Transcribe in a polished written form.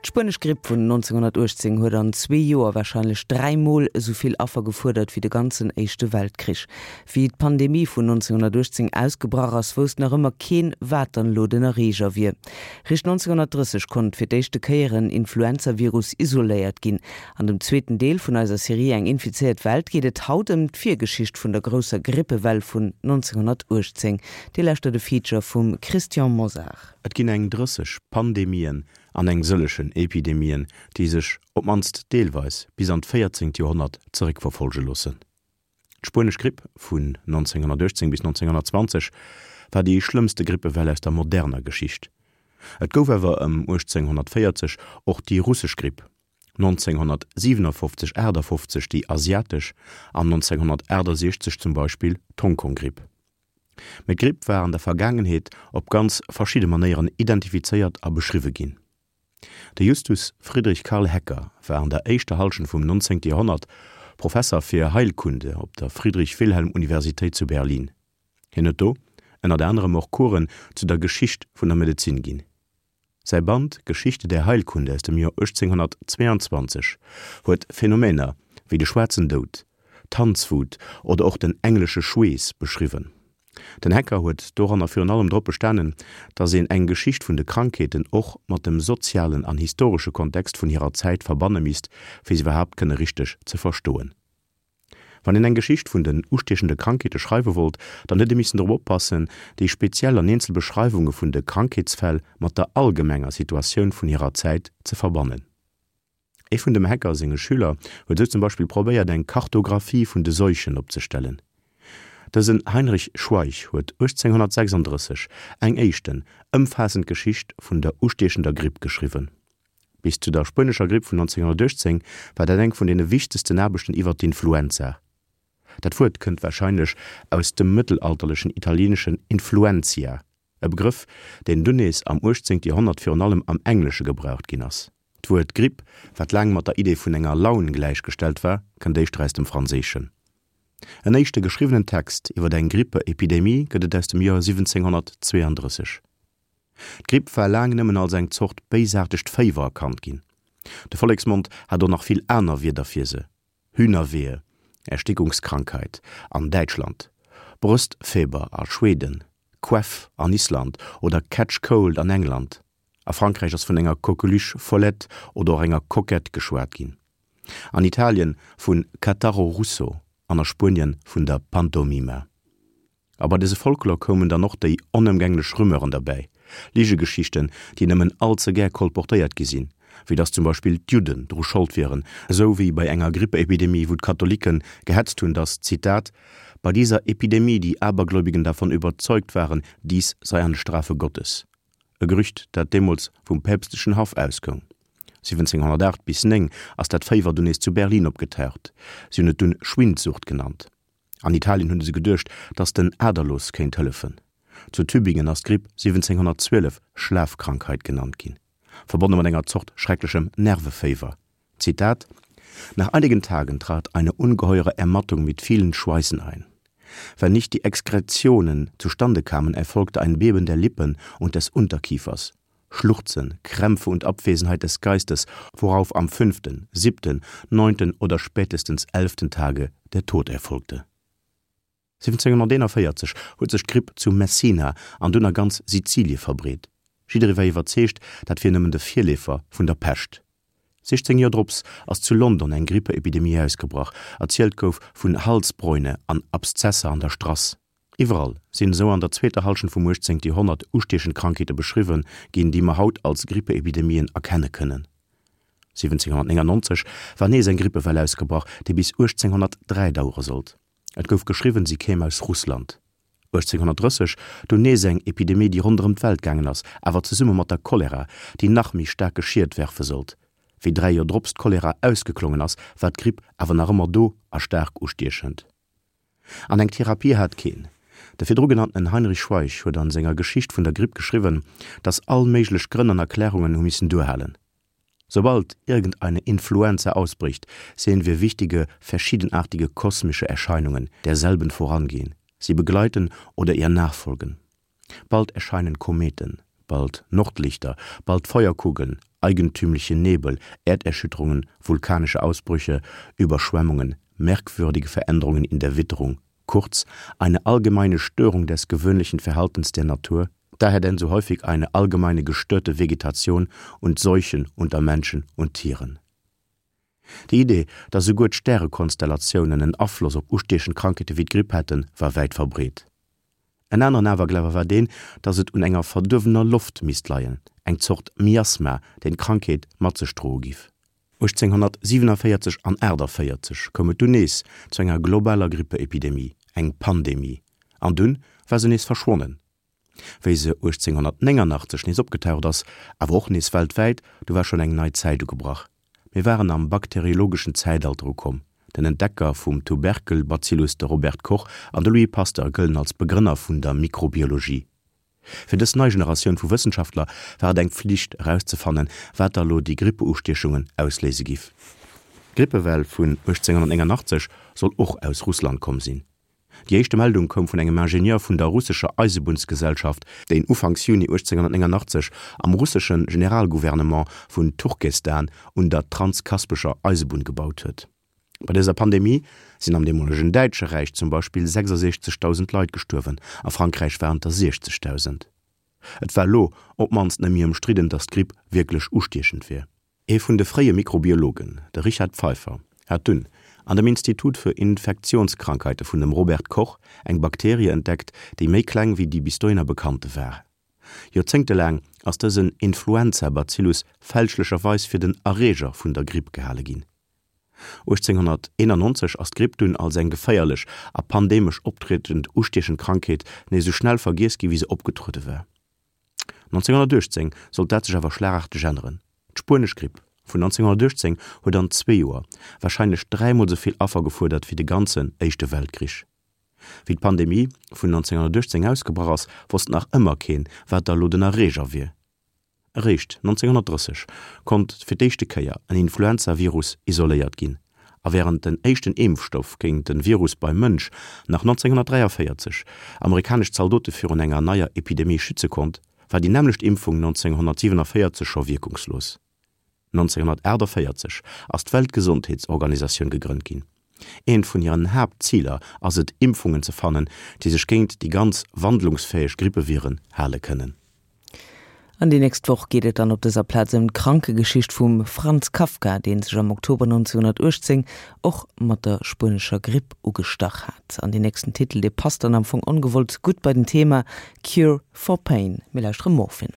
D'spuenesch Gripp vun 1918 huet an zwee Joer warscheinlech dräimol esou vill Affer gefuerdert wéi de ganzen Éischte Weltkrich. Wéi d'Pandemie vun 1918 ausgebrach ass, wousst nach ëmmer keen, wat dann elo den Erreeger wier. Richt 1930 konnt fir d'éischte Kéier en Influenzavirus isoléiert ginn. An dem zweeten Deel vun eiser Serie Eng infizéiert Welt geet et haut ëm d'Virgeschicht vun der grousser Grippewell vun 1918. Dir lauschtert e Feature vum Christian Mosar. Et ginn eng 30 Pandemien an eng sëllechen Epidemien, déi sech, op d'mannst deelweis, bis an d'véierzéngt Joerhonnert zeréckverfollege loossen. D'Spuenesch Gripp vun 1918 bis 1920 war déi schlëmmste Grippewell aus der moderner Geschicht. Et gouf awer ëm 1840 och déi russesch Gripp, 1957, 58 déi asiatesch an 1968 zum Beispill d'Hongkong-Gripp. Mee d'Gripp war an der Vergaangenheet op ganz verschidde Manéieren identifizéiert a beschriwwe ginn. De Justus Friedrich Karl Hecker war an der éischter Hallschent vum 19. Joerhonnert Professer fir Heilkunde op der Friedrich-Wilhelm-Universitéit zu Berlin. Hien huet do ënnert anerem och Coursen zu der Geschicht vun der Medezin ginn. Säi Band Geschichte der Heilkunde aus dem Joer 1822 huet Phänomener wéi de schwaarzen Doud, d'Tanzwut oder och den englesche Schweess beschriwwen. Den Hecker huet doranner virun allem drop bestanen, datt een eng Geschicht vun de Krankheeten och mat dem sozialen an historesche Kontext vun hirer Zäit verbanne misst, fir se iwwerhaapt kënne richteg ze verstoen. Wann een eng Geschicht vun den ustiechende Krankheete schreiwe wollt, dann huet ee missen drop oppassen, déi speziell an eenzel Beschreiwunge vun de Krankheetsfäll mat der allgemenger Situatioun vun hirer Zäit ze verbannen. Ee vun dem Hecker senge Schüler huet esou zum Beispill probéiert, eng Kartographie vun de Seuchen opzestellen. Dësen Heinrich Schweich huet 1836 eng éischten, ëmfaassend Geschicht vun der ustiechender Gripp geschriwwen. Bis zu der spuenescher Gripp vun 1918 war dat eng vun deene wichtegsten Aarbechten iwwer d'Influenza. Dat Wuert kënnt warscheinlech aus dem mëttelalterlechen italieeneschen influentia, e Begrëff, deen dunn nees am 18. Joerhonnert virun allem am Englesche gebraucht ginn ass. D'Wuert Gripp, wat laang mat der Idee vun enger Laun gläichgestallt war, kënnt éischter aus dem Franséischen. En éischte geschriwwenen Text iwwer eng Grippeepidemie gëtt et aus dem Joer 1732. D'Gripp war laang nëmmen als eng Zort béisaartegt Féiwer erkannt ginn. De Volleksmond hat och nach vill aner Wierder fir se, Hühnerwehe, Erstickungskrankheit, an Däitschland, Bröstfeber a Schweden, Queff an Island oder Catch Cold an England. A Frankräich ass vun enger Coqueluche follette oder och enger Coquette geschwat ginn, an Italien vun Catarro russo an a Spuenien vun der Pantomima. A bei dëse Folklor koumen dann och déi onëmgänglech Rumeuren derbäi, Ligegeschichten, déi nëmmen all ze gär kolportéiert gi sinn, wéi datt zum Beispill d'Judden dru Schold wieren, esou wéi bei enger Grippeepidemie, wou d'Katholikke gehetzt hunn, datt, Zitat, bei dieser Epidemie die Abergläubigen davon überzeugt waren, dies sei eine Strafe Gottes. E Gerücht, dat deemools vum päpstlechen Haff ausgoung. 1708 bis 9 ass dat Féiwer dunn nees zu Berlin opgetaucht, si hunn et dunn Schwindsucht genannt. An Italien hunn se geduecht, datt den Aderlos kéint hëllefen. Zu Tübingen ass d'Gripp 1712 Schlafkrankheit genannt ginn, verbonne mat enger Zort schrecklechem Nerveféiwer. Zitat, Nach einigen Tagen trat eine ungeheure Ermattung mit vielen Schweißen ein. Wenn nicht die Exkretionen zustande kamen, erfolgte ein Beben der Lippen und des Unterkiefers. Schluchzen, Krämpfe und Abwesenheit des Geistes, worauf am fünften, siebten, neunten oder spätestens elften Tage der Tod erfolgte. 1741 huet sech d'Gripp zu Messina an dunn a ganz Sizilie verbreet. Jidderee war iwwerzeegt, dat wier nëmmen de Virleefer vun der Pescht. 16 Joer drops ass zu London eng Grippeepidemie ausgebrach, erzielt gouf vun Halsbräune an Abszesser an der Strass. Iwwerall sinn esou an der zweeter Hallschent vum 18. Joerhonnert ustiechend Krankheete beschriwwe ginn, déi mer haut als Grippeepidemien erkenne kënnen. 1799 war nees eng Grippewell ausgebrach, déi bis 1803 dauere sollt. Et gouf geschriwwen, si kéim aus Russland. 1830 dunn nees eng Epidemie, déi ronderëm d'Welt gaangen ass, awer zesumme mat der Cholera, déi nach méi staarke Schied werfe sollt. Wéi 3 Joer drops d'Cholera ausgeklongen ass, war d'Gripp awer nach ëmmer do a staark ustiechend. An eng Therapie hat keen. De virdru genanntenen Heinrich Schweich huet an senger Geschicht vun der Gripp geschriwwen, datt all méiglech Grënn an Erklärungen hu missen duerhalen. Sobald irgendeine Influenza ausbricht, sehen wir wichtige, verschiedenartige kosmische Erscheinungen derselben vorangehen, sie begleiten oder ihr nachfolgen. Bald erscheinen Kometen, bald Nordlichter, bald Feuerkugeln, eigentümliche Nebel, Erderschütterungen, vulkanische Ausbrüche, Überschwemmungen, merkwürdige Veränderungen in der Witterung, kurz eine allgemeine Störung des gewöhnlichen Verhaltens der Natur, daher denn so häufig eine allgemeine gestörte Vegetation und Seuchen unter Menschen und Tieren. Déi Idee, datt esouguer d'Stärekonstellatiounen en Afloss op ustiechend Krankheete wéi d'Gripp hätten, war wäit verbreet. En aneren Awerglawe war deen, datt et un enger verduerwener Loft misst leien, eng Zort Miasma, deen d'Krankheet mat sech droe giff. 1847 an 48 koum et dunn nees zu enger globaler Grippeepidemie, eng Pandemie, an dunn war se nees verschwonnen. Wéi se 1889 nees opgetaucht ass, awer och nees weltwäit, du war schonn eng nei Zäit ugebrach. Mir waren am bakteriologeschen Zäitalter ukomm. Den Entdecker vum Tuberkelbazillus, de Robert Koch, an de Louis Pasteur gëllen als Begrënner vun der Mikrobiologie. Fir dës nei Generatioun vu Wëssenschaftler war et eng Pflicht erauszefannen, wat da lo déi Grippeustiechungen ausléise giff. D'Grippewell vun 1889 soll och aus Russland komm sinn. Déi éischte Meldung koum vun engem Ingenieur vun der russescher Eisebunnsgesellschaft, deen ufanks Juni 1889 am russesche Generalgouvernement vun Turkestan un der transkaspescher Eisebunn gebaut huet. Bei dëser Pandemie sinn am deemolegen Däitsche Räich zum Beispill 66.000 Leit gestuerwen, a Frankräich waren et der 60.000. Et war elo op d'mannst net méi ëmstridden, datt d'Gripp wierklech ustiechend wier. Ee vun de fréie Mikrobiologen, de Richard Pfeiffer, hat dunn an dem Institut für Infektionskrankheiten vun dem Robert Koch eng Bakterie entdeckt, déi méi kleng wéi déi bis dohinner bekannte war. Joerzéngtelaang ass dësen Influenza-Bacillus fälschlecherweis fir den Erreeger vun der Gripp gehale ginn. 1891 ass d'Gripp dunn als eng geféierlech a pandemesch optriedend ustiechend Krankheet nees esou schnell vergiess gi wéi se opgetruede war. 1918 sollt dat sech awer schlagarteg änneren. D'Spuenesch Gripp vun 1918 huet an zwee Joer warscheinlech dräimol sou vill Affer gefuerdert wéi de ganzen Éischte Weltkrich. Wéi d'Pandemie vun 1918 ausgebrach ass, wosst nach ëmmer keen, wat da lo den Erreeger wier. Eréischt 1930 konnt fir d'éischte Kéier en Influenzavirus isoléiert ginn. A wärend den éischten Impfstoff géint de Virus beim Mënsch nach 1943 amerikanesch Zaldote virun enger neier Epidemie schütze konnt, war déi nämmlecht Impfung 1947 scho wierkungslos. 1948 ass d'Weltgesondheetsorganisatioun gegrënnt ginn. Eent vun hiren Haaptziler ass et, Impfungen ze fannen, déi sech géint déi ganz wandlungsfäeg Grippeviren hale kënnen. An déi nächst Woch geet et dann op dëser Plaz ëm d'Krankegeschicht vum Franz Kafka, dee sech am Oktober 1918 och mat der spuenescher Gripp ugestach hat. An deen nächsten Titel, dee passt dann am Fong ongewollt gutt bei den Thema, Cure for Pain. Mir lauschtere Morphine.